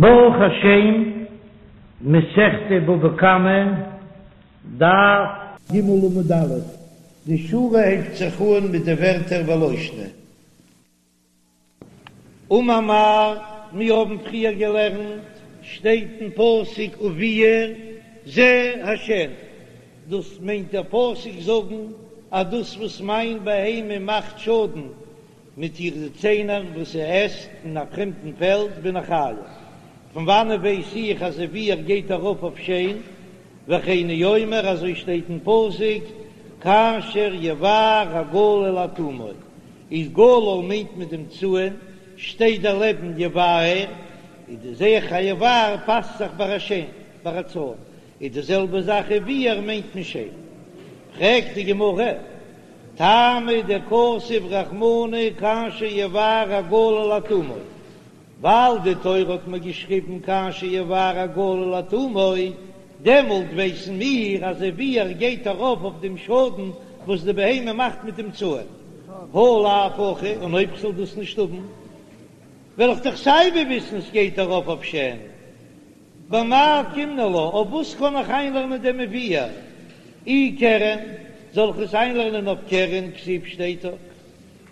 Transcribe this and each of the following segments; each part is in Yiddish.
ברוך השם, מסכת בבא קמא, דף ג עמוד א', די שורה הייבט זיך אן מיט די ווערטער ולא שנא. אמר מר, מיר האבן פריער געלערנט, שטייט אין פסוק ובער זה השן, דאס מיינט דער פסוק זאגן אז דאס וואס מיין בהמה מאכט שאדן מיט אירע ציינער וואס זי עסט אין א פרעמדן פעלד בין איך חייב. פון וואנעט ווייס איך אז ובער גייט ארויף אויף שן? וכן הוא אומר אזוי שטייט אין פסוק כאשר יבער הגלל עד תומו, איז גלל מיינט מיט דעם צאן, שטייט דערלעבן יבער, איז די זע איך אז יבער פאסט זיך ביי א שן, ביי א צאן, איז די זעלבע זאך ובער מיינט מען שן. פרעגט די גמרא, טעמא דכתב רחמנא כאשר יבער הגלל עד תומו, ווייל די תורה האט מיר געשריבן כאשר יבער הגלל עד תומו, דעמאלט ווייסן מיר אז ובער גייט ארויף אויף דעם שאדן וואס די בהמה מאכט מיט דעם צאן, הא לאו הכי, און אויב כ'זאל דאס נישט האבן וועל איך דאך סייווי וויסן ס'גייט ארויף אויף שן. במאי אוקימנא לה, אויף וואס קען איך איינלערנען דעם ובער? אי קרן, זאל איך עס איינלערנען אויף קרן, כתיב שטייט דאך,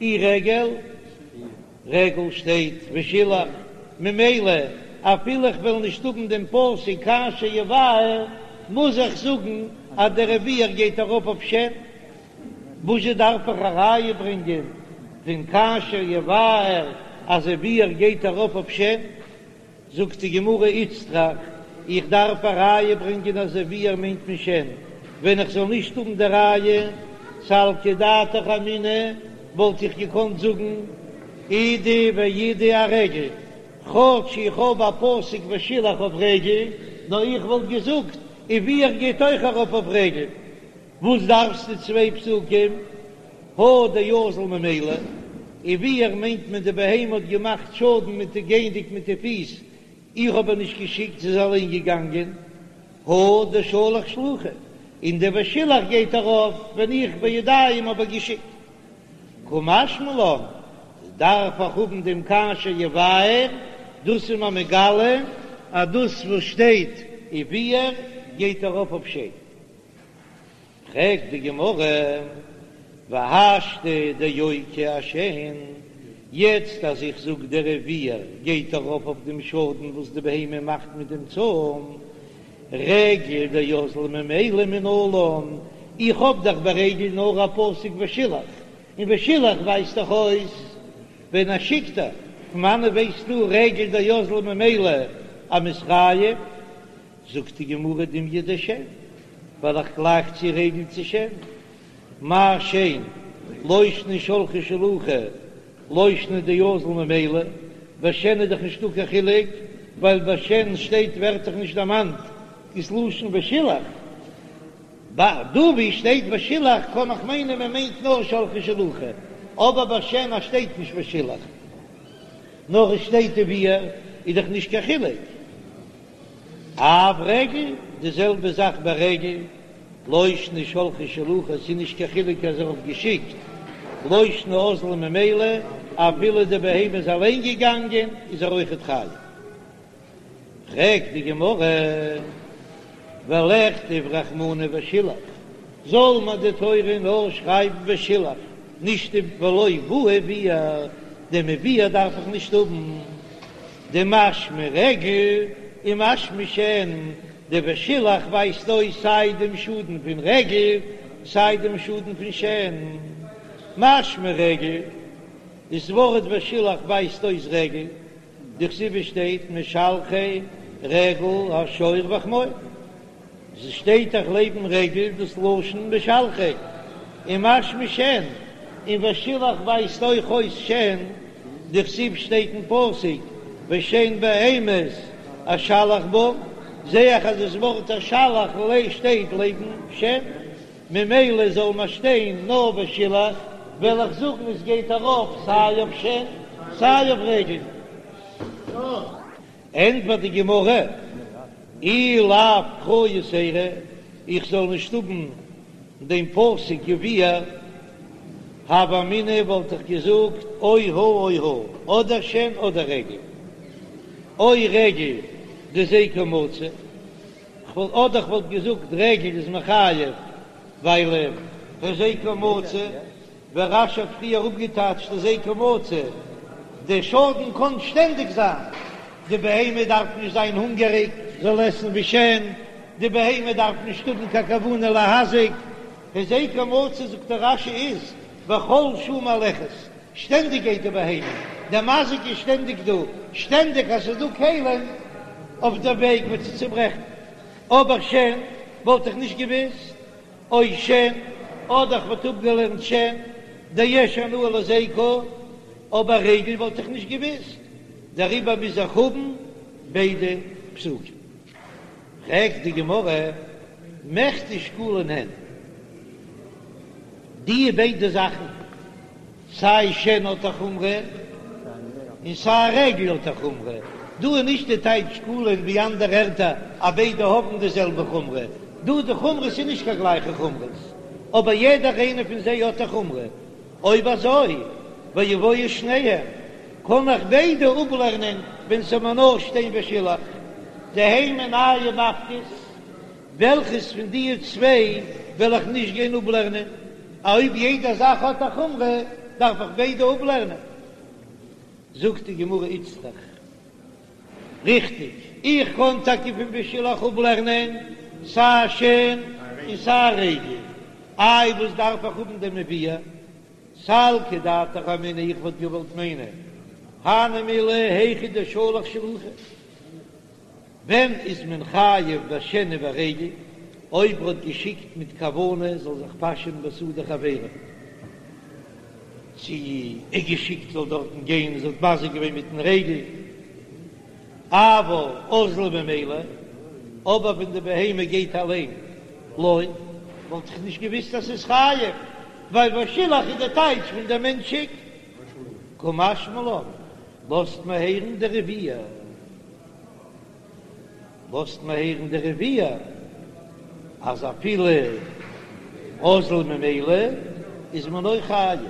אי רגל, רגל שטייט ושילח, ממילא אפילו איך וועל נישט האבן דעם פסוק כאשר יבער, מוז איך זאגן אז דער ובער גייט ארויף אויף שן. וואזשע דארף איך א ראיה ברענגען פון כאשר יבער אז ובער גייט ארויף אויף שן? זאגט די גמרא איצטריך, איך דארף א ראיה ברענגען אז ובער מיינט מען שן, ווען איך זאל נישט האבן די ראיה, סלקא דעתך אמינא, וואלט איך געקאנט זאגן אידי ואידי ארגל, כאטש איך האב א פסוק ושילח אויף רגל, נאר איך וואלט געזאגט ובער גייט אויך ארויף אויף רגל, וואס דארפסטו צוויי פסוקים? הא דאזיל ממילא, ובער מיינט מען די בהמה האט געמאכט שאדן מיט די גייענדיג מיט די פיס, איך האב איר נישט געשיקט זי איז אליין געגאנגען, הא דשלח שלוחי, און די ושילח גייט ארויף ווען איך בידיים האב איר געשיקט. קא משמע לן, דארף איך האבן דעם כאשר יבער, דאס איז מיר מגלה אז דאס וואס שטייט ובער גייט ארויף אויף שן. פרעגט די גמרא, והשתא דאוקי אשן, יעצט אז איך זאג דער ובער גייט ארויף אויף דעם שאדן וואס די בהמה מאכט מיט דעם צאן, רגל דאזיל ממילא מנלן, איך האב דאך ביי רגל נאר א פסוק ושילח, און ושילח ווייזט דאך אויס ווען ער שיקט איר, פון וואנעט ווייסטו רגל דאזיל ממילא אז מ'איז חייב? זאגט די גמרא דומיא דשן, ווייל איך גלייך צו רגל צו שן, מה שן לא שנא שלחה שלוחי לא שנא דאזיל ממילא, ביי שן איז דאך נישטא קיין חילוק, ווייל ביי שן שטייט ווערט דאך נישט דערמאנט דאס לשון ושילח, ביי דא ווי שטייט ושילח קען איך מיינען מען מיינט נאר שלחה שלוחי, אבער ביי שן אז שטייט נישט ושילח נאר עס שטייט ובער איז דאך נישט קיין חילוק. אף רגל, די זעלבע זאך ביי רגל, לא שנא שלחה שלוחי, ס'איז נישט קיין חילוק אז ער האט געשיקט, לא שנא אזלה ממילא, אפילו די בהמה איז אליין געגאנגען איז ער אויכעט חייב. פרעגט די גמרא, ולכתוב רחמנא ושילח, זאל מיר די תורה נאר שרייבן ושילח, נישט ולא בעי ובער, דעם ובער דארף איך נישט האבן. דמשמע רגל ומשמע שן, די ושילח ווייזט אויס סיי דעם שאדן פון רגל סיי דעם שאדן פון שן. משמע רגל, דאס ווארט ושילח ווייזט אויס רגל, דכתיב שטייט משלחי רגל השור והחמור. ס'שטייט דאך לעבן רגל דאס לשון משלחי ומשמע שן, און ושילח ווייזט אויך אויס שן, דכתיב שטייט אין פסוק ושן בהמות אשלח בם, זעה איך אז דאס ווארט אשלח שטייט לעבן שן, ממילא זאל מען שטיין נאר ושילח, וועל איך זאגן עס גייט ארויף סיי אויף שן סיי אויף רגל. ענטפערט די גמרא, אי לאו קרא יתירא, איך זאל נישט האבן דעם פסוק ובער, הוה אמינא וואלט איך געזאגט או הא או הא, אדער שן אדער רגל. או רגל דהזיקה מצוי, כ'וואלט אדער כ'וואלט געזאגט רגל איז מחייב ווייל הזיקה מצוי, ווי רש"י האט פריער אפגעטייטשט הזיקה מצוי, דער שאדן קען שטענדיג זיין, די בהמה דארף נישט זיין הונגעריג זאל עסן ווי שן, די בהמה דארף נישט האבן קיין כוונה להזיק, הזיקה מצוי זאגט דער רש"י איז בכל שעה מהלכת, שטענדיג גייט די בהמה, דער מזיק איז שטענדיג דא, שטענדיג אז ס'איז דא כלים אויף דער וועג וועט זי צוברעכן, אבער שן וואלט איך נישט געוויסט, או שן, אדער כ'וואלט אפגעלערנט שן, דיש הנאה להזיקה, אבער רגל וואלט איך נישט געוויסט, דעריבער מוז איך האבן ביידע פסוקים. פרעגט די גמרא, מכדי שקולין הן, די ביידע זאכן, סיי שן האט א חומרא און סיי רגל האט א חומרא, דא איז נישט די טייטש שקולין ווי אנדערע ערטער אז ביידע האבן די זעלבע חומרא, דא די חומרות איז נישט קיין גלייכע חומרות, אבער יעדער איינע פון זיי האט א חומרא, אויב אזוי ויבואו שניהם, קען איך ביידע אפלערנען ווען ס'זאל מיר נאר שטיין ושילח, דהי מינייהו מפקת, וועלכעס פון די צוויי וועל איך נישט גיין אפלערנען? אויב יעדע זאך האט א חומרא דארף איך ביידע אפלערנען. זאגט די גמרא איצטריך, ריכטיג, איך קען טאקע פון ושילח אפלערנען סיי שן און סיי רגל, איי וואס דארף איך האבן דעם וביער? סלקא דעתך אמינא איך וואלט געוואלט מיינען הני מילי היכא דשלח שלוחי. ווען איז מען חייב בשן וברגל? אויב ר'האט געשיקט מיט כוונה זאל זיך פאשען בשדה חבירו, צו ער געשיקט זאל דארטן גיין און זי האט מזיק געווען מיטן רגל, אבל אזלה ממילא, אבער ווען די בהמה גייט אליין, לא, וואלט איך נישט געוויסט אז ס'איז חייב, ווייל ושילח איז די טייטש פון דער מענטש שיקט. קא משמע לן, לאזט מען הערן דער וביער. לאזט מען הערן דער וביער אז אפילו אזלה ממילא איז מען אויך חייב.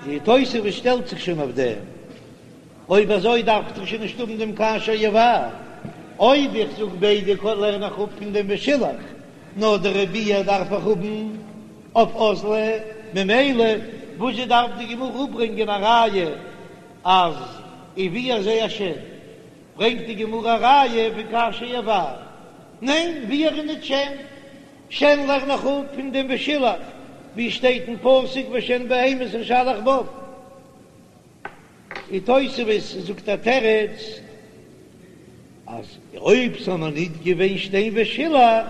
די תוספות שטעלט זיך שוין אויף דעם, אויב אזוי דארף איך דאך שוין נישט האבן דעם כאשר יבער, אויב איך זאג ביידע לערן איך אפ פון דעם ושילח, נאר דער וביער דארף איך האבן אויף אזלה, ממילא וואזשע דארף די גמרא אפברענגען א ראיה אז וביער זה השן? ברענגט די גמרא א ראיה פון כאשר יבער, ניין וביער איז ניט שן, שן לערן איך אפ פון דעם ושילח ווי שטייט אין פסוק ושן בהמות אשלח בם. און תוספות זאגט א תירוץ אז אויב ס'זאל נאר ניט געווען שטיין ושילח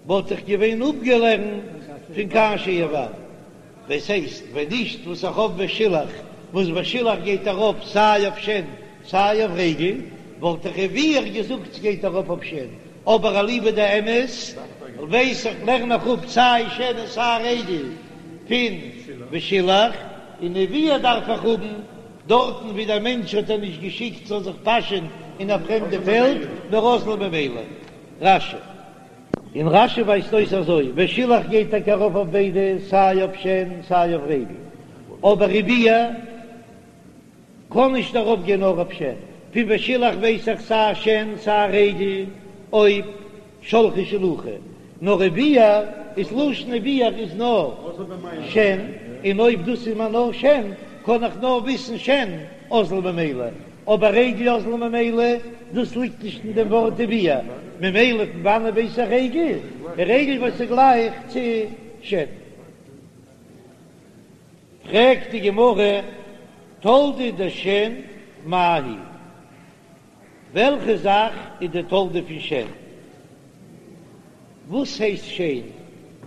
וואלט איך געווען אפגעלערנט פון כאשר יבער, דאס הייסט ווען נישט וואס איך האב ושילח, וואס ושילח גייט ארויף סיי אויף שן סיי אויף רגל, וואלט איך וביער געזאגט ס'גייט ארויף אויף שן, אבער אליבא דאמת ווייס איך לערן איך אפ סיי שן און סיי רגל פון ושילח, און וביער דארף איך האבן דארטן ווי דער מענטש האט איר נישט געשיקט זאל זיך פאשען אין א פרעמדע פעלד, נאר אזלה ממילא. רש"י. און רש"י ווייזט אויס אזוי, ושילח גייט טאקע ארויף אויף ביידע, סיי אויף שן סיי אויף רגל, אבער וביער קען נישט ארויף גיין נאר אויף שן, פון ושילח ווייס איך סיי שן סיי רגל אויב שלחה שלוחי, נאר וביער איז לשון וביער איז נאר שן, און אויב דאס איז מיר נאר שן קען איך נאר וויסן שן אזל ממילא, אבער רגל אזל ממילא, דאס ליגט נישט אין דעם ווארט וביער, ממילא פון וואנען ווייס איך רגל? רגל וואס איז גלייך צו שן. פרעגט די גמרא, תולדה דשן מאי היא? וועלכע זאך איז די תולדה פון שן? וואס הייסט שן?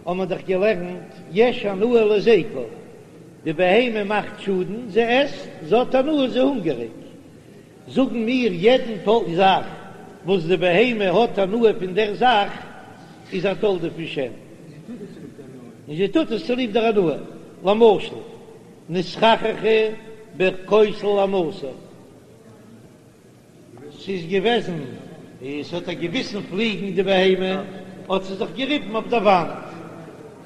האבן מיר דאך געלערנט יש הנאה להזיקה, די בהמה מאכט שאדן, זי עסט, זי האט הנאה, זי איז הונגעריג. זאגן מיר יעדן זאך וואס די בהמה האט הנאה פון דער זאך איז א תולדה פון שן, און זי טוט עס צוליב דער הנאה. למשל, נתחככה בכותל הנתור. ס'איז געוועזן, עס האט איר געביסן פליגן די בהמה, האט זי זיך געריבן אויף דער וואנט,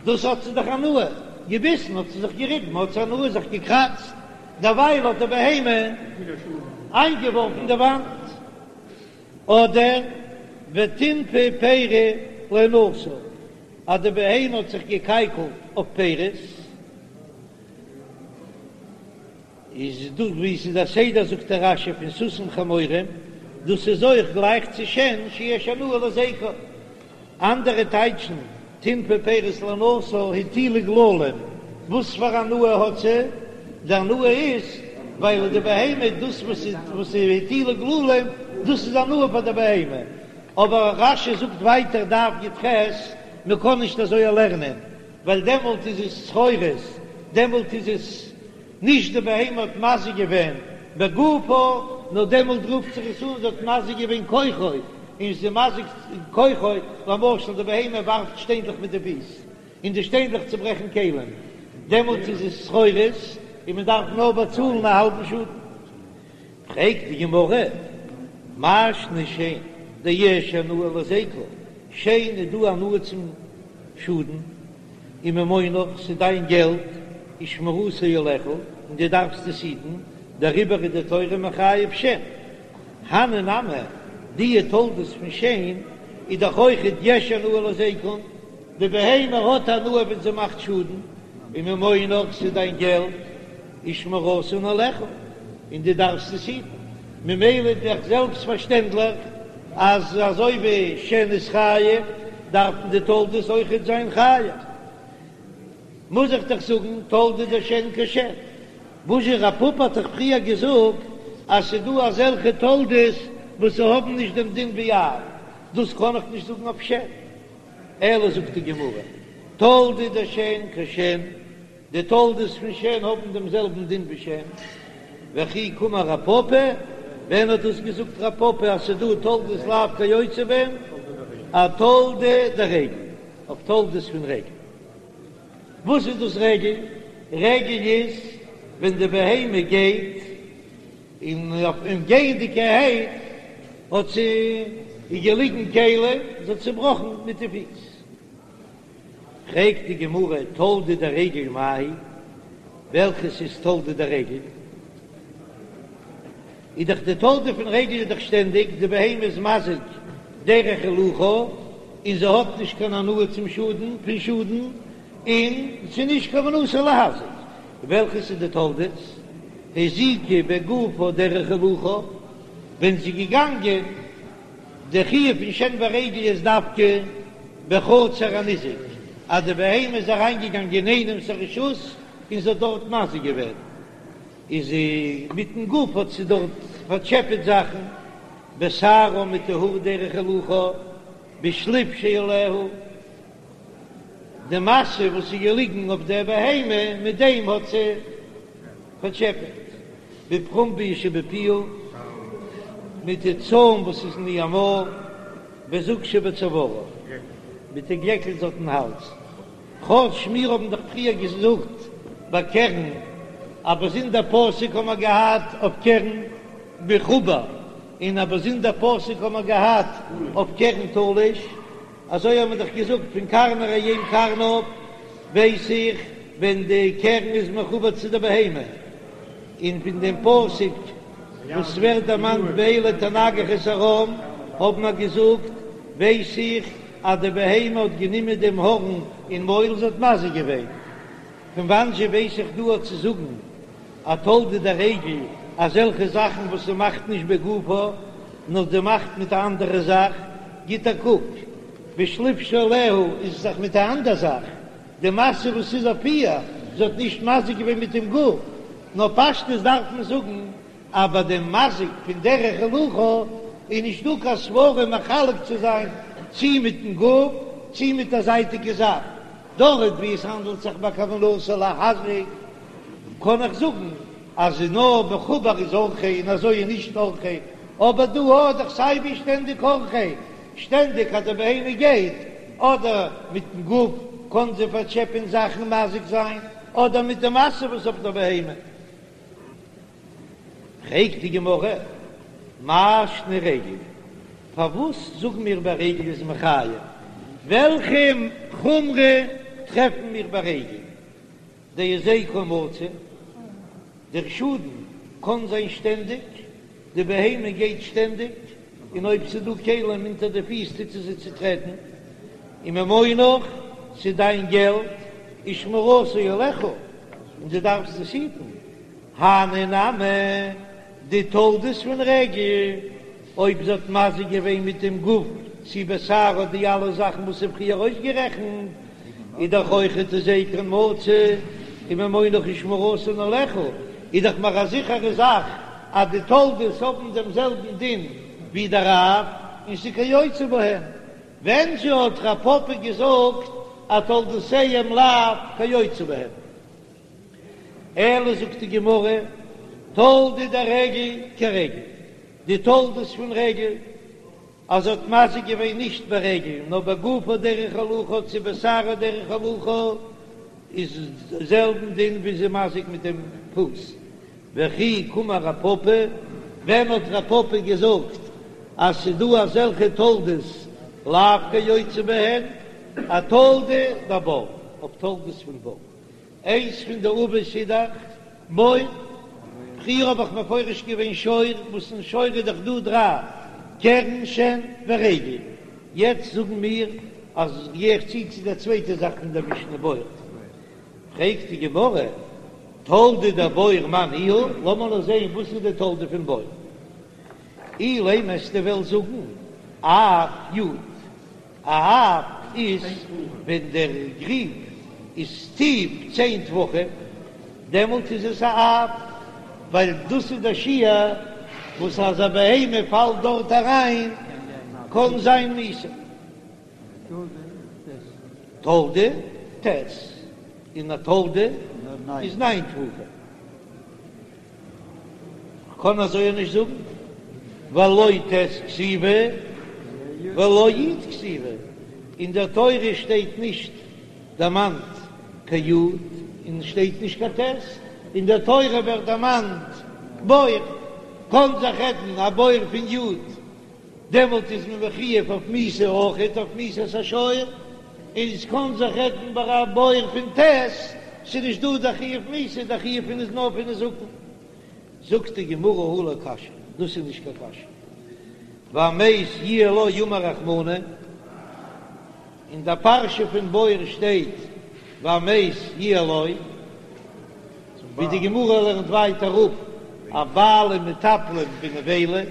דאס האט זי דאך הנאה, געביסן האט זי זיך געריבן, האט זי הנאה זיך געקראצט. דערווייל האט די בהמה איינגעווארפן די וואנט. אדער וטינפה פירי להנאתה, אז די בהמה האט זיך געקייקלט אויף פירות, איז דאס ווי עס איז א סדר זאגט דער רש"י פון סוסים חמורים, דאס איז אויך גלייך צו שן שיש הנאה להזיקה. אנדערע טייטשן טינפה פירות להנאתה הטילה גללים, וואס פאר הנאה האט זי? די הנאה איז ווייל די בהמה דאס וואס וואס הטילה גללים דאס איז הנאה פאר די בהמה, אבער רש"י זאגט ווייטער דף י"ח מען קען נישט אזוי לערנען ווייל דעמאלט איז עס צרורות, דעמאלט איז עס נישט די בהמה האט מזיק געווען בגופה, נאר דעמאלט רופט זיך עס אן זי האט מזיק געווען כוחו, און זי איז מזיק כוחו, למשל די בהמה ווארפט שטיינדלעך מיט די פיס, און די שטיינדלעך צוברעכן כלים, דעמאלט איז עס צרורות, און מען דארף נאר באצאלן א האלבן שאדן. פרעגט די גמרא, מאי שנא שן דיש הנאה להזיקה, שן איז דא הנאה צום שאדן, וממונך, ס'איז דיין געלט, ושמירתו עליך, און דו דארפסט עס היטן, דעריבער איז די תורה מחייב שן. הני נמי, די תולדות פון שן איז דאך אויכעט יש הנאה להזיקן, די בהמה האט הנאה ווען זי מאכט שאדן, וממונך, ס'איז דיין געלט, ושמירתן עליך, און דו דארפסט עס היטן, ממילא איז דאך זעלבסט פארשטענדליך אז אזוי ווי שן איז חייב, דארפן די תולדות אויכעט זיין חייב. מוז איך דאך זאגן תולדה דשן כשן. וואזשע רב פפא האט דאך פריער געזאגט אז ס'איז דא אזעלכע תולדות וואס ס'האבן נישט דעם דין ווי אב, דאס קען איך נישט זאגן אויף שן. אלא זאגט די גמרא, תולדה דשן כשן. די תולדות פון שן האבן דעם זעלבן דין ווי שן, וכי קאמר רב פפא, ווען האט דאס געזאגט רב פפא אז ס'דא תולדות לאו כיוצא בהן? אתולדה דרגל, אויף תולדות פון רגל. וואס איז דאס רגל? רגל איז ווען די בהמה גייט, און אויף גייענדיגערהייט האט זי איז געליגן כלים, זי האט צעבראכן מיט די פיס. פרעגט די גמרא תולדה דרגל מאי היא, וועלכעס איז תולדה דרגל? איז דאך די תולדה פון רגל איז דאך שטענדיג די בהמה איז מזיק דרך הילוכה און זי האט נישט קיין הנאה צום שאדן פון שאדן און ס'איז נישט כוונתה להזיק, וועלכעס איז די תולדות? הזיקה בגופה דרך הילוכה, ווען זי איז געגאנגען די חיוב פון שן ורגל איז דווקא בחצר הניזק, אז די בהמה איז אריינגעגאנגען אין איינעמס א רשות און זי האט דארט מזיק געווען, איז זי מיטן גוף האט זי דארט פארטשעפעט זאכן, בשערה מיט די האר דרך הילוכה, בשליף שעליה, די משא וואס איז געליגן אויף דער בהמה, מיט דעם האט זי פארטשעפעט, בפרומביא שבפיה, מיט די צוים וואס איז אין איר מויל, בזוג שבצווארה, מיט די גלעקל זי האט אין האלז. כאטש מיר האבן דאך פריער געזאגט ביי קרן, א באזונדער פסוק האבן מיר געהאט אויף קרן מחובר, און א באזונדער פסוק האבן מיר געהאט אויף קרן תלוש, אזוי האבן מיר דאך געזאגט פון קרני ראם קרניו ווייס איך ווען די קרן איז מחובר צו די בהמה, און פון דעם פסוק וואס ווערט דערמאנט באלה תנגח את ארם האבן מיר געזאגט ווייס איך אז די בהמה האט גענומען דעם הארן אין מויל זי האט מזיק געווען. פון וואנען זשע ווייס איך דא אויף צו זאגן א תולדה דרגל אזעלכע זאכן וואס זי מאכט נישט בגופה נאר זי מאכט מיט א אנדערע זאך, גיט א קוק בשליף שעליה איז עס דאך מיט א אנדער זאך, די משא וואס איז אויף איר, זי האט נישט מזיק געווען מיט דעם גוף, נאר פשטות דארף מען זאגן אז ביי דעם מזיק פון דרך הילוכה איז נישט דא קיין סברא מחלק צו זיין צי מיטן גוף צי מיט א זייטיגע זאך, דארט ווי עס האנדלט זיך ביי כוונתו להזיק קען איך זאגן אז נאר מחובר איז אורחיה און אזוי איז נישט אורחיה, אבער דא האט דאך סיי ווי שטענדיג אורחיה, שטענדיג אז די בהמה גייט אדער מיטן גוף קען זי פארטשעפען זאכן מזיק זיין אדער מיט די משא וואס אויף דער בהמה. פרעגט די גמרא, מאי שנא רגל, פארוואס זאגן מיר ביי רגל איז מחייב? וועלכע חומרא טרעפן מיר ביי רגל? דהזיקה מצוי? דער שאדן קען זיין שטענדיג, די בהמה גייט שטענדיג, און אויב ס'איז דא כלים אונטער די פיס טוט זי זיי צוטרעטן, וממונך, ס'איז דיין געלט, ושמירתו עליך, און דו דארפסט עס היטן, הני נמי, די תולדות פון רגל, אויב זי האט מזיק געווען מיט דעם גוף צי בשערה די אלע זאכן וואס איז פריער אויסגערעכנט, איז דאך אויכעט הזיקן מצוי, וממונך ושמירתן עליך, איז דאך מער א זיכערע זאך אז די תולדות האבן דעם זעלבן דין ווי דער אב, און ס'איז כיוצא בהן. ווען זשע האט רב פפא געזאגט אז תולדותיהם לאו כיוצא בהן? אלא זאגט די גמרא, תולדה דרגל כרגל, די תולדות פון רגל, אז זי האט מזיק געווען נישט ברגל נאר בגופה דרך הילוכה צו בשערה דרך הילוכה, איז זעלבן דין ווי זי מזיק מיט דעם פוס. וכי קאמר רב פפא, ווען האט רב פפא געזאגט אז ס'דא אזעלכע תולדות לאו כיוצא בהן, אתולדה דבור, אויף תולדות פון בור. איינס פון די אבות איז דאך בור, פריער האב איך מפרש געווען שור, וואס אין שור איז דאך דא דריי, קרן שן ורגל, יעצט זאגן מיר אז גיי איך צו צו דער צווייטע זאך פון דער משנה בור, פרעגט די גמרא, תולדה דבור מאי ניהו, לאמיר נאר זען וואס איז די תולדה פון בור, אילימא וועסטו וועלן זאגן אף יוד. א אף איז ווען דער גריב איז טיף צען טפחים, דעמאלט איז עס א אף, ווייל דאס איז דער שיעור וואס אז א בהמה פאלט דארט אריין קען זיין מיתה. תולדה ט', און א תולדה איז ניין טפחים. כ'קען אזוי נישט זאגן, ווייל לא ט' כתיבא ולא י' כתיבא, אין דער תורה שטייט נישט דערמאנט קיין י' און שטייט נישט קיין ט', אין דער תורה ווערט דערמאנט בור, קען זיך רעדן א בור פון י', דעמאלט איז מען מחויב אויף מיתה אויכעט אויף מיתת השור, און עס קען זיך רעדן ביי א בור פון ט', ס'איז נישט דא דער חיוב מיתה, דער חיוב פון איז נאר פון נזקין. זאגט די גמרא הא לא קשיא, דאס איז נישט קיין קשיא, והמת יהיה לו אמר רחמנא, אין דער פרשה פון בור שטייט והמת יהיה לו, ווי די גמרא לערנט ווייטער אפ אז בעלים מטפלים בנבילה.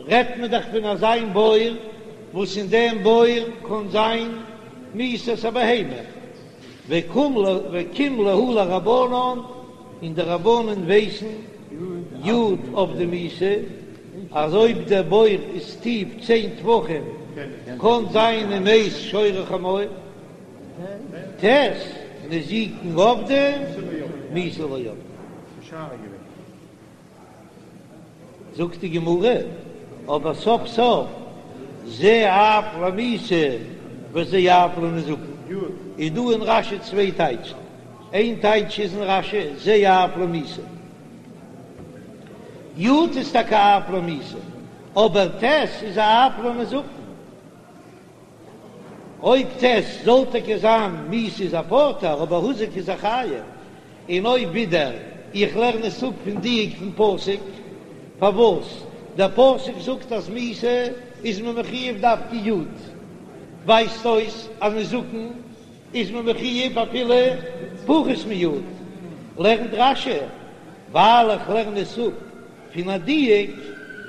רעדט מען דאך פון אזא בור וואס אין דעם בור קען זיין מיתת הבהמה, וקים להו לרבנן, און די רבנן ווייסן יוד עבדי מיתה, אז אויב דער בור איז טיף צען טפחים קען זיין ומת שור או חמור, ט' נזיקין עבדי מיתה לא עבדי. זאגט די גמרא, אבער סוף סוף זה אב למיתה וזה אב לנזקין, איז דא אין רש"י צוויי טייטשן, איין טייטש איז אין רש"י זה אב למיתה, יוד איז טאקע אב למיתה, אבער ט' איז א אב לנזקין. אויב ט' זאל טאקע זיין מיתה איז ער פטור, אבער הוזק איז ער חייב, און אויב ווידער איך לערן עס אפ פון דיוק פון פסוק, פארוואס דער פסוק זאגט אז מיתה איז מען מחויב דווקא יוד, ווייזט אויס אז נזקין איז מען מחויב אפילו פחות מיוד, לערנט רש"י ווייל איך לערן עס אפ פון א דיוק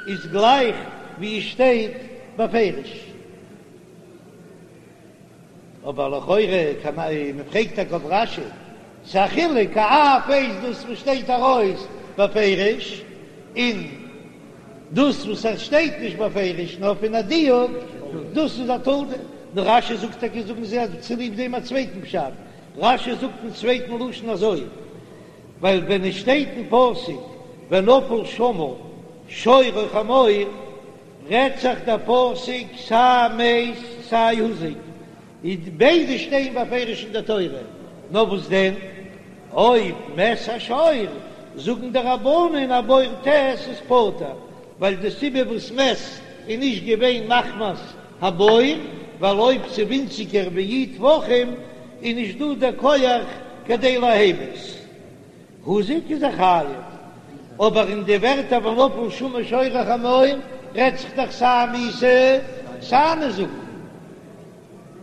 איז גלייך ווי עס שטייט בפירוש. אבער לכאורה קען מען פרעגט טאקע אויף רש"י, ס'איז א חילוק א אף איז דאס וואס שטייט ארויס בפירוש, און דאס וואס עס שטייט נישט בפירוש נאר פון א דיוק, דאס איז א תולדה. נאר רש"י זאגט טאקע זאגן זיי אז צוליב דעם א צווייטן פשט, רש"י זאגט אין צווייטן לשון אזוי, ווייל ווען עס שטייט אין פסוק ונפל שמה שור או חמור, רעדט זיך דער פסוק סיי מת סיי הוזק, איז ביידע שטייען בפירוש אין דער תורה, נאר וואס דען אויב מת השור, זאגן די רבנן א בור ט' איז פטור, ווייל די סיבה וואס מת איז נישט געווען מחמת הבור, ווייל אויב ס'איז ווינציגער ווי י' טפחים איז נישט דא דער כח כדי להמית. הוזק איז ער חייב, אבער אין די ווערטער ונפל שמה שור או חמור רעדט זיך דאך סיי מיתה סיי נזקין,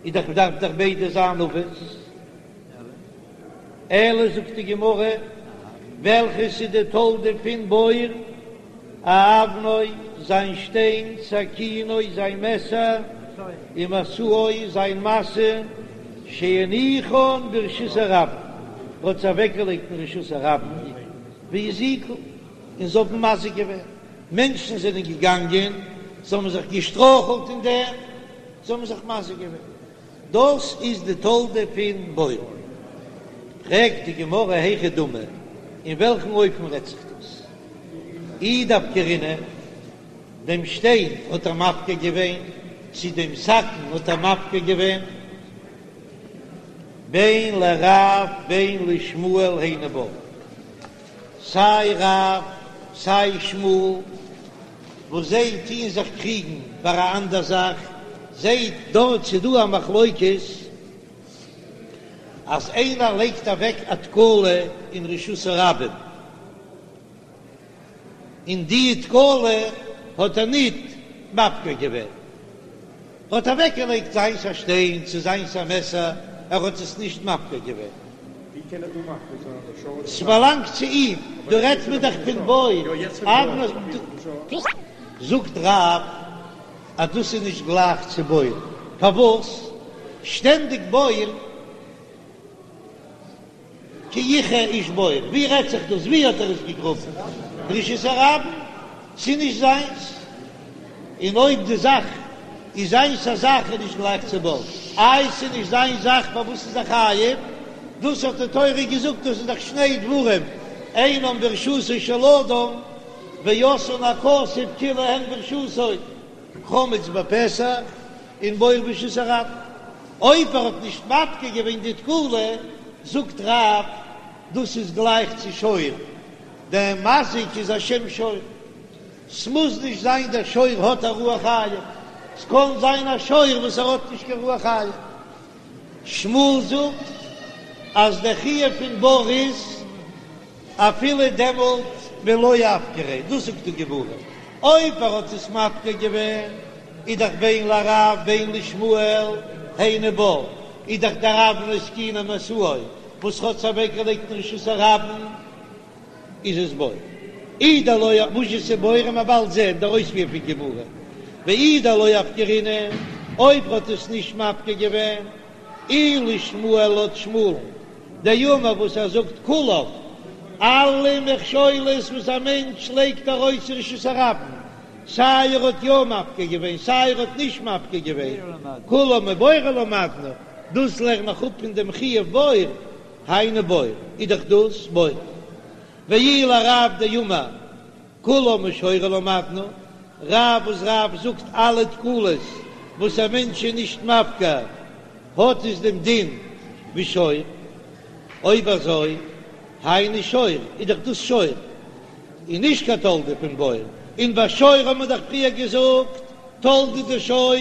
איז דאך דארף דאך ביידע זיין אבות. אלא זאגט די גמרא, וועלכעס איז די תולדה פון בור? אבנו, זיין שטיין, סכינו, זיין מעסער, ומשאו, זיין משא, שהניחן ברשות הרבים, ער האט עס אוועקגעלייגט אין רשות הרבים, והזיקו, און זיי האבן מזיק געווען, מענטשן זענען געגאנגען, זיי האבן זיך געשטרויכלט אין דעם, זיי האבן זיך מזיק געווען. דאס איז די תולדה פון בור. פרעגט די גמרא היכי דמי, אין וועלכן אופן רעדט זיך דאס? אי דאפקרינהו, דעם שטיין האט ער מפקיר געווען, צו דעם סכין האט ער מפקיר געווען? בין לרב בין לשמואל היינו בור, סיי רב סיי שמואל וואס זיי טוען זיך קריגן ביי א אנדער זאך, זעט דארט ס'איז דא א מחלוקת אז איינער לייגט אוועק א תקלה אין רשות הרבים, און די תקלה האט ער ניט מפקיר געווען, האט אוועקגעלייגט זיינס א שטיין צו זיינס א מעסער, ער האט עס נישט מפקיר געווען. ווי קען ער דא מפקיר זיין די שור? ס'באלאנגט צו אים, דא רעדט מען דאך פון בור. זאגט רב אז דאס איז נישט גלייך צו בור, פארוואס שטענדיג בור? כי יכרה איש בור, ווי רעדט זיך דאס? ווי האט ער עס געגראבן? ברשות הרבים? ס'איז נישט זיינס. און אויב די זאך איז זיינס א זאך איז נישט גלייך צו בור. איי ס'איז נישט זיין זאך פארוואס איז ער חייב? דאס האט די תורה געזאגט דאס איז דאך שני דברים אינם ברשותו של אדם ועשאן הכתוב כאילו הן ברשותו, חמץ בפסח און בור ברשות הרבים. אויב ער האט נישט מפקיר געווען די תקלה, זאגט רב, דאס איז גלייך צו שור, דער מזיק איז א שם שור, ס'מוז נישט זיין דער שור האט א רוח חיים, ס'קען זיין א שור וואס ער האט נישט קיין רוח חיים. שמואל זאגט אז דער חיוב פון בור איז אפילו דעמאלט ווען לא אפקריה, דאס זאגט די גמרא, אויב ער האט עס מפקיר געווען איז דאך בין לרב בין לשמואל היינו בור, איז דאך דער אבנו סכינו ומשאו וואס האט עס אוועקגעלייגט אין רשות הרבים איז עס בור. אי דלא וואס איז בור וועט מען באלד זען דער אויספיר פון גמרא, ואי דלא אפקרינהו אויב ער האט עס נישט מפקיר געווען אי לשמואל לויט שמואל'ן דאמר וואס ער זאגט כולם, אלע מכשולות וואס א מענטש לייגט ארויס אין רשות הרבים, סיי ער האט יא מפקיר געווען סיי ער האט נישט מפקיר געווען, כולם מבורו למדנו, דאס לערן איך אפ פון דעם חיוב בור, היינו בור, איז דאך דאס בור. ואי לרב דאמר כולם משורו למדנו, רב וואס רב זאגט אלע תקלות וואס א מענטש איז נישט מפקיר האט עס דעם דין ווי שור, אויב אזוי היינו שור איז דאך דאס שור און נישט קיין תולדה פון בור, און ביי שור האט מען דאך פריער געזאגט תולדה דשור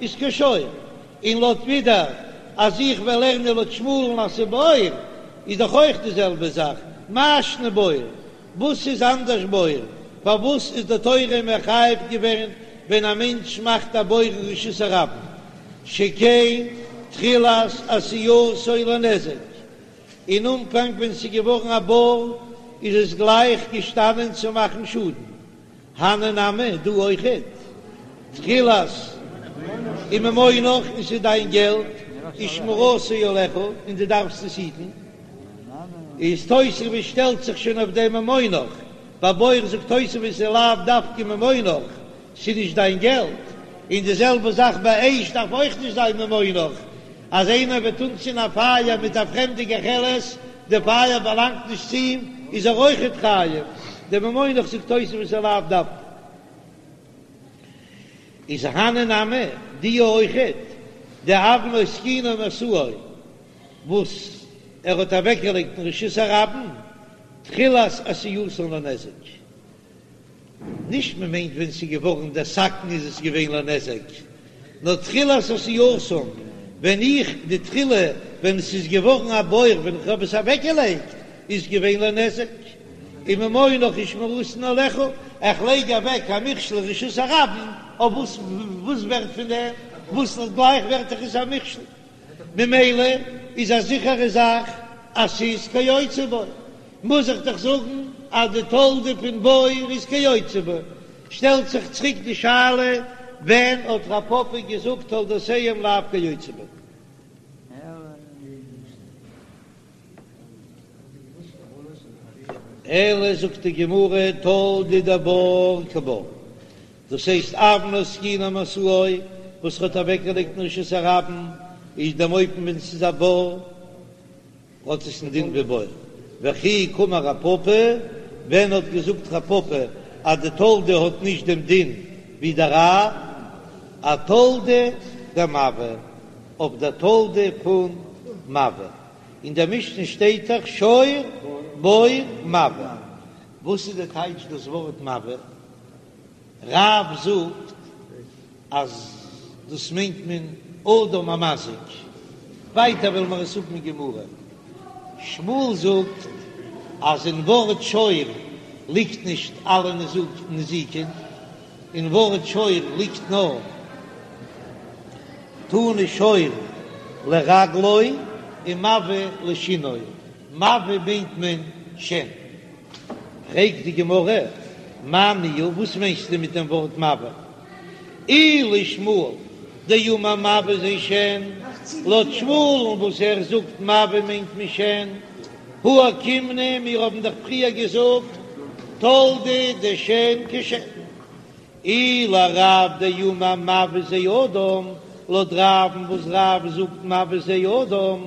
איז כשור, און לויט ווידער אז איך וועל לערנען לויט שמואל'ן אז ס'בור איז דאך אויך די זעלבע זאך, מאי שנא בור? וואס איז אנדערש בור? פארוואס איז די תורה מחייב געווען ווען א מענטש מאכט א בור אין רשות הרבים, שכן תחילת עשייתו לנזק, אין אנפאנג ווען ס'איז געווארן א בור איז עס גלייך געשטאנען צו מאכן שאדן, הני נמי, דא אויכעט, תחילת וממונך און ס'איז דיין געלט, ושמירתו עליך און דו דארפסט עס היטן, איז תוספות שטעלט זיך שוין אויף דעם ממונך, ביי בור זאגט תוספות איז לאו דווקא ממונך, ס'איז נישט דיין געלט, און די זעלבע זאך ביי אש דארף אויך נישט זיין ממונך, אז איינער וועט אנצינדן א פייער מיט א פרעמדע גחלת, די פייער באלאנגט נישט צו אים, איז ער אויכעט חייב, די ממונך זאגט תוספות איז לאו דווקא. איז הני נמי, די אויכעט, דאבנו סכינו ומשאו, וואס ער האט אוועקגעלייגט אין רשות הרבים, תחילת עשייתן לנזק. נישט מען מיינט ווען ס'איז געווארן דער סכין איז עס געווען לנזק, נאר תחילת עשייתן, ווען איך די תחילה ווען ס'איז געווארן א בור ווען איך האב עס אוועקגעלייגט. איז געווען לנזק, וממונך ושמירתן עליך, איך לייג אוועק א מכשול רשות הרבים, אויף וואס וואס ווערט פון דעם, וואס גלייך ווערט דאך עס א מכשול, ממילא איז א זיכערע זאך אז ס'איז כיוצא בו, מוז איך דאך זאגן אז די תולדה פון בור איז כיוצא בו, שטעלט זיך צוריק די שאלה, ווען האט רב פפא געזאגט תולדותיהם לאו כיוצא בו? אלא זאגט די גמרא תולדה דבור כבור, דאס הייסט אבנו סכינו ומשאו וואס ער האט אוועקגעלייגט אין רשות הרבים איז דעם אופן ווען ס'איז א בור האט עס א דין ווי בור, וכי קאמר רב פפא, ווען האט געזאגט רב פפא אז די תולדה האט נישט דעם דין ווי דער אב, אתולדה דמבעה, אויף דער תולדה פון מבעה, אין דער משנה שטייט דאך שור בור מבעה, וואס איז די טייטש דאס ווארט מבעה? רב זאגט אז דאס מיינט מען אדם המזיק, ווייטער וועלן מיר עס האבן אין גמרא. שמואל זאגט אז אין ווארט שור ליגט נישט אלע נזיקין, אין ווארט שור ליגט נאר תנא שור לרגלו און מבעה לשינו, מבעה מיינט מען שן. פרעגט די גמרא, מאי ניהו, וואס מיינסטו מיט דעם ווארט מבעה? אי לשמואל דאמר מבעה זה שן, לויט שמואל'ן וואס ער זאגט מבעה מיינט מען שן, הא אוקימנא, מיר האבן דאך פריער געזאגט תולדה דשן כשן. אי לרב דאמר מבעה זה אדם, לויט רב'ן וואס רב זאגט מבעה זה אדם,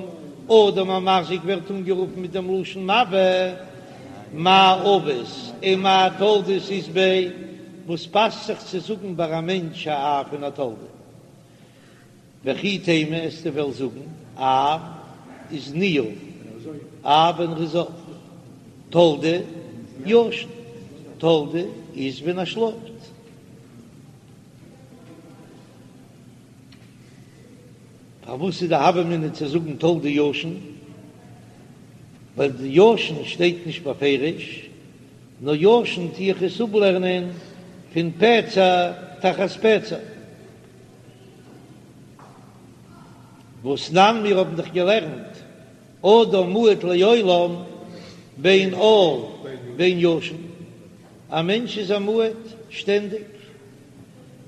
אדם המזיק ווערט אנגערופן מיט דעם לשון מבעה, מאי אבות ומאי תולדות אית ביה, וואס פאסט זיך צו זאגן ביי א מענטש א אב און א תולדה? וכי תימא וועסטו וועלן זאגן אב איז ניעור, אב ווען ר'איז אויף, תולדה ישן, תולדה איז ווען ער שלאפט. פארוואס איז די הוה אמינא צו זאגן תולדה ישן? ווייל די ישן שטייט נישט בפירוש, נאר ישן טו איך עס אפלערנען פון פצע תחת פצע. והתנן מיר האבן דאך געלערנט אדם מועד לעולם בין ער בין ישן, א מענטש איז א מועד שטענדיג,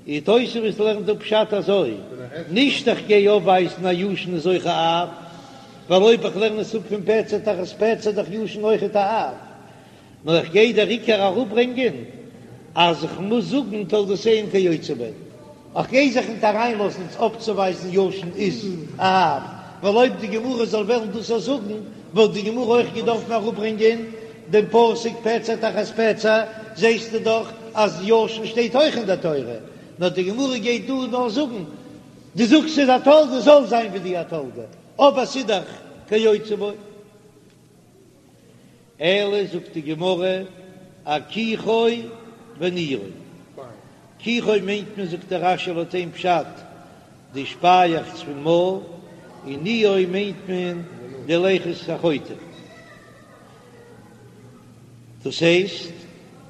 און תוספות לערנט דא פשט אזוי, נישט איך גיי אויפווייזן אז ישן איז אויך א אב, ווייל אויב איך לערן עס אפ פון פצע תחת פצע איז דאך ישן אויכעט א אב, נאר איך גיי דער עיקר אראפברענגען אז איך מוז זאגן תולדותיהם כיוצא בהן, איך גיי זיך ניט אריינלאזן אויפצואווייזן ישן איז א אב, ווייל אויב די גמרא זאל וועלן דאס אויך זאגן וואלט די גמרא אויך געדארפן אראפברענגען דעם פסוק פצע תחת פצע, זעסטו דאך אז ישן שטייט אויך אין דער תורה, נאר די גמרא גייט דא נאר זאגן, דו זאגסט ס'איז א תולדה זאל זיין ווי די א תולדה, אבער ס'איז דאך כיוצא בו. אלא זאגט די גמרא אכיחו וניעו, כיחו מיינט מען זאגט דער רש"י לויט איין פשט די שפייעכץ פון מויל, און ניעו מיינט מען די לחות החוטם, דאס הייסט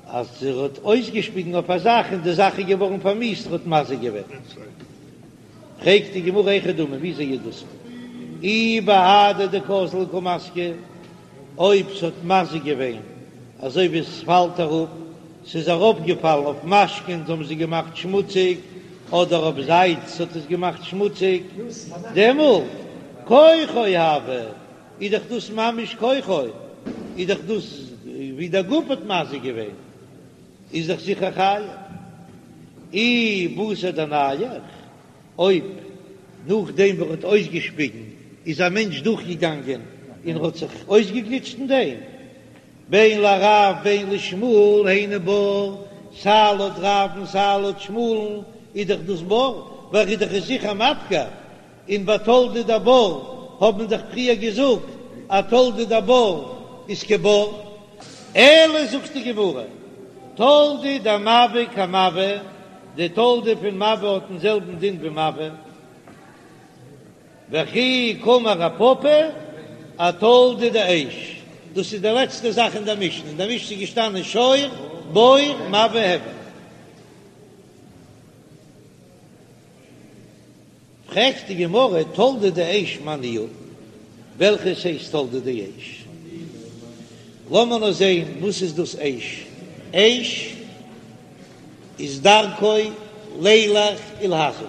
אז ער האט אויסגעשפיגן אויף א זאך און די זאך איז געווארן פארמיאוסט ער האט מזיק געווען. פרעגט די גמרא היכי דמי וויאזוי איז דאס אי בהדי דקאזלי קא מזקי, אויב ס'האט מזיק געווען אזוי ווי עס פאלט אראפ, ס'איז אראפגעפאלן אויף משקין האבן זיי געמאכט שמוציג, אדער אויף זייץ האט עס געמאכט שמוציג, דעמאלט כוחו הוי, איז דאך דאס ממש כוחו, איז דאך דאס ווי דער גוף האט מזיק געווען, איז דאך זיכער חייב. אי בתר דנייח, אויב נאכדעם וואס ער האט אויסגעשפיגן איז א מענטש דורכגעגאנגען און האט זיך אויסגעגליטשט אין דעם, בין לרב בין לשמואל היינו בור, סיי לויט רב און סיי לויט שמואל'ן איז דאך דאס בור, ווייל ער איז דאך עס זיכער מפקיר, און ביי תולדה דבור האט מען דאך פריער געזאגט אז תולדה דבור איז כבור. אלא זאגט די גמרא, תולדה דמבעה כמבעה, די תולדה פון מבעה האט דעם זעלבן דין ווי מבעה, וכי קאמר רב פפא אתולדה דאש. דאס איז די לעצטע זאך אין דער משנה, אין דער משנה איז געשטאנען שור, בור, מבעה, הבער. פרעגט די גמרא, תולדה דאש מאי ניהו, וועלכעס הייסט תולדה דאש? לאמיר נאר זען וואס איז דאס אש, אש איז דרכו לילך ולהזיק.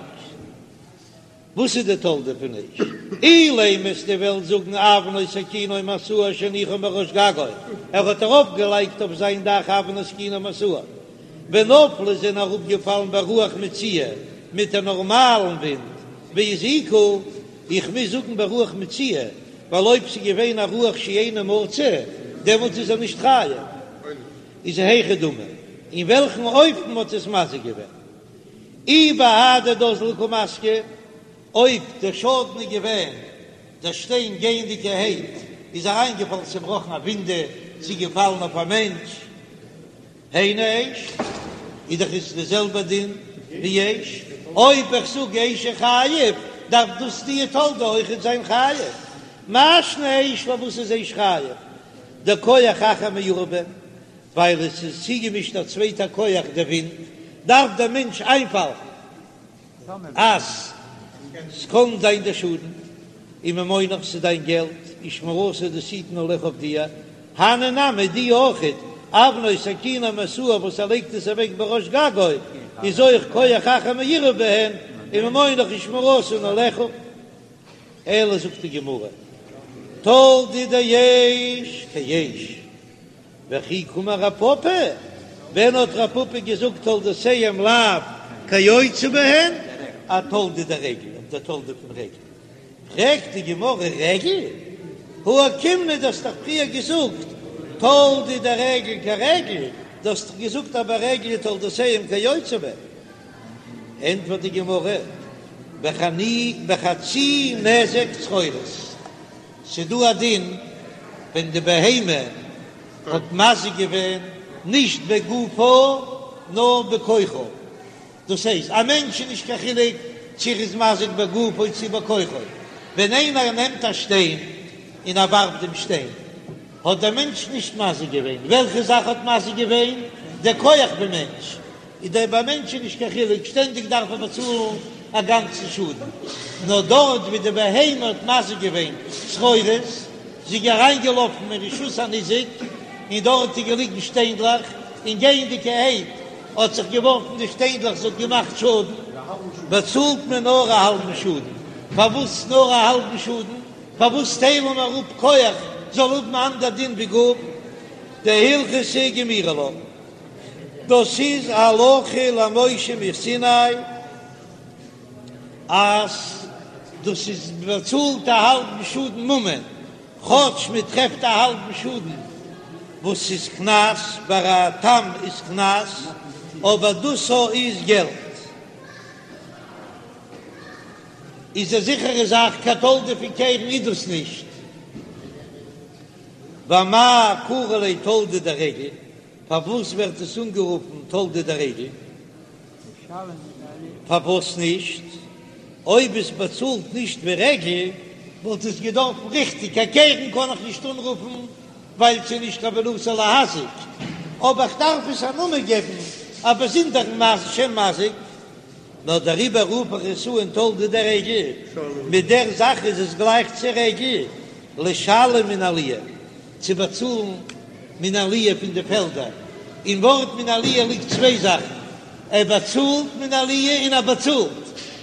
וואס איז די תולדה פון אש? אילימא וועסטו וועלן זאגן אבנו סכינו ומשאו שהניחן בראש גגו, ער האט ארויף געלייגט אויף זיין דאך אבנו סכינו ומשאו, ונפלו זענען אראפ געפאלן ברוח מצויה מיט א נארמאלן ווינט והזיקו, איך מוז זאגן ברוח מצויה ווייל אויב ס'איז געווען א רוח שאינה מצוי דעמאלטס איז ער נישט חייב, איז היכי דמי אין וועלכן אופן האט עס מזיק געווען? אי בהדי דאזלי קא מזקי, אויב דער שאדן איז געווען דער שטיין גייענדיגערהייט איז אריינגעפאלן צובראכן א ווינדע צי געפאלן אויף א מענטש, היינו אש, איז דאך עס די זעלבע דין ווי אש, אויב איך זאג אש איז חייב דארף דאס די תולדה אויכעט זיין חייב, מאי שנא אש פארוואס איז אש חייב? דכח אחר מעורב בהן, ווייל עס איז צוגעמישט א צווייטע כח דער ווינט, דארף דער מענטש איינפאלן אז ס'קען זיין דער שאדן, וממונך ס'איז דיין געלט, ושמירתו דאס היטן עליך אויף דיר, הני נמי די אויכעט, אבנו סכינו ומשאו וואס ער לייגט עס אוועק בראש גגו, איז אויך כח אחר מעורב בהן, וממונך ושמירתן עליך. אלא זאגט די גמרא, תולדה דאש כאש. וכי קאמר רב פפא, ווען האט רב פפא געזאגט תולדותיהם לאו כיוצא בהן, אתולדה דרגל, אויף די תולדה פון רגל, פרעגט די גמרא רגל? הא אוקימנא דו האסט דאך פריער געזאגט תולדה דרגל כרגל, דו האסט דאך געזאגט אז ביי רגל איז תולדותיהם כיוצא בהן. ענטפערט די גמרא, בחצי נזק צרורות. ס'דא א דין ווען די בהמה האט מזיק געווען נישט בגופה נאר בכוחו, דאס הייסט א מענטש איז נישט קיין חילוק צו ער איז מזיק בגופו צו בכוחו, ווען איינער נעמט א שטיין און ער ווארפט דעם שטיין האט דער מענטש נישט מזיק געווען, וועלכע זאך האט מזיק געווען? דער כח פון מענטש. איז דער ביי מענטשן נישט קיין חילוק, שטענדיג דארף ער באצאלן א גאנצן שאדן, נאר דארט ווי די בהמה האט מזיק געווען צרורות, זי איז אריינגעלאפן אין רשות הניזק, און דארט איז געליגן שטיינדלעך, און גייענדיגערהייט האט זיך געווארפן די שטיינדלעך, זי האט געמאכט שאדן, באצאלט מען נאר א האלבן שאדן. פארוואס נאר א האלבן שאדן? פארוואס טיילן מיר אפ כח זאל האבן אנדער דין ווי גוף? דהלכתא גמירי לה. דאס איז הלכה למשה מסיני אז דאס איז באצאלט א האלבן שאדן ממון, כאטש מען טרעפט א האלבן שאדן וואס איז קנס, ביי א תם איז קנס, אבער דאס איז געלט. איז א זיכערע זאך קיין תולדה פון קרן איז דאס נישט. ואמאי קרי ליה תולדה דרגל? פארוואס ווערט עס אנגערופן תולדה דרגל? פארוואס נישט? אויב עס באצאלט נישט ווי רגל וואלט עס געדארפן ריכטיג קיין קרן קען איך נישט אנרופן ווייל ס'איז נישט כוונתו להזיק, אבער איך דארף עס א נאמען געבן א באזונדערן שם מזיק, נאר דעריבער רוף איך עס אן תולדה דרגל, מיט דער זאך איז עס גלייך צו רגל, לשלם מן העליה. צו באצאלן מן העליה פון די פעלדער, אין ווארט מן העליה ליגט צוויי זאכן, ער באצאלט מן העליה און ער באצאלט,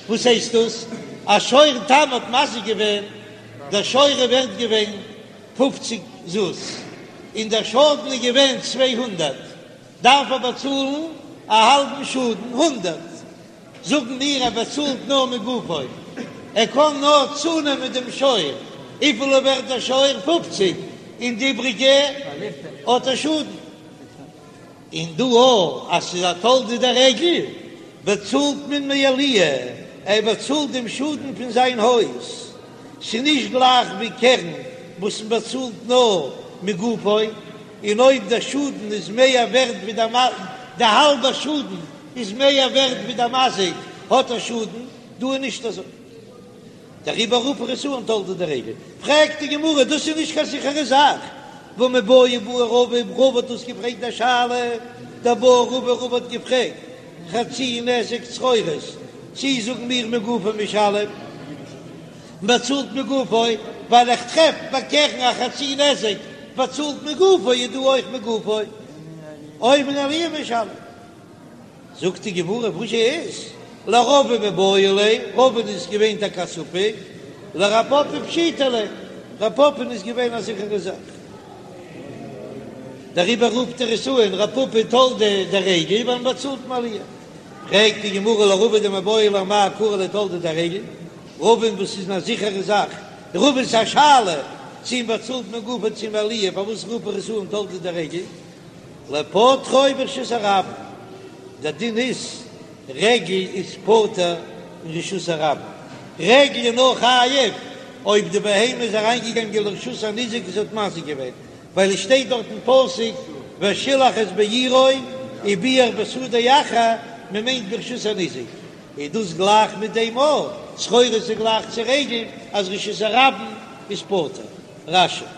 וואס הייסט דאס? א שור תם האט מזיק געווען, דער שור איז ווערט געווען פופציג זוז, און דער שאדן איז געווען 200, דארף ער באצאלן א האלבן שאדן, הונדערט. זאגן מיר ער באצאלט נאר מגופו, ער קען נאר צונעמען דעם שור, וויפיל איז ווערט דער שור? פופציג, און די איבריגע האט ער שאדן. און דא אויך אז ס'איז א תולדה דרגל באצאלט מען מעליה, ער באצאלט דעם שאדן פון זיין הויז, ס'איז נישט גלייך ווי קרן וואס מען באצאלט נאר מגופו, און אויב דער שאדן איז מער ווערט ווי די האלבע שאדן איז מער ווערט ווי דער מזיק האט ער שאדן, דא איז נישט אזוי. דעריבער רוף איך עס אן תולדה דרגל. פרעגט די גמרא, דאס איז נישט קיין זיכערע זאך. והא מיבעיא בעי רבא, רבא האט דאס געפרעגט א שאלה, דבעי רבא, רבא האט געפרעגט חצי נזק צרורות, צי זאגן מיר מגופו משלם, באצאלט מגופו, ווייל איך טרעף ביי קרן א חצי נזק באצאלט מגופו איז דא אויך מגופו, או מן העליה משלם. זאגט די גמרא וואס איז לרבא מיבעיא ליה, רבא'ן איז געווען טאקע א ספק, לרב פפא פשיטא ליה, רב פפא'ן איז געווען א זיכערע זאך, דעריבער רופט ער עס אן רב פפא תולדה דרגל ווייל מ'באצאלט מעליה. פרעגט די גמרא לרבא דמיבעיא ליה אמאי קרי ליה תולדה דרגל, רבא'ן וואס איז א זיכערע זאך, רבא'ן איז א שאלה צי מ'באצאלט מגופו צי מעליה, פארוואס רופט ער עס אן תולדה דרגל? לפוטרו ברשות הרבים, דער דין איז רגל איז פטור אין רשות הרבים, רגל איז נאר חייב אויב די בהמה איז אריינגעגאנגען לרשות הניזק און ס'האט מזיק געווען, ווייל עס שטייט דארט אין פסוק ושילח את בעירו ובער בשדה אחר, מען מיינט ברשות הניזק, איז דאס גלייך מיט דעם אויך, צרורות איז גלייך צו רגל אז רשות הרבים איז פטור. רש"י.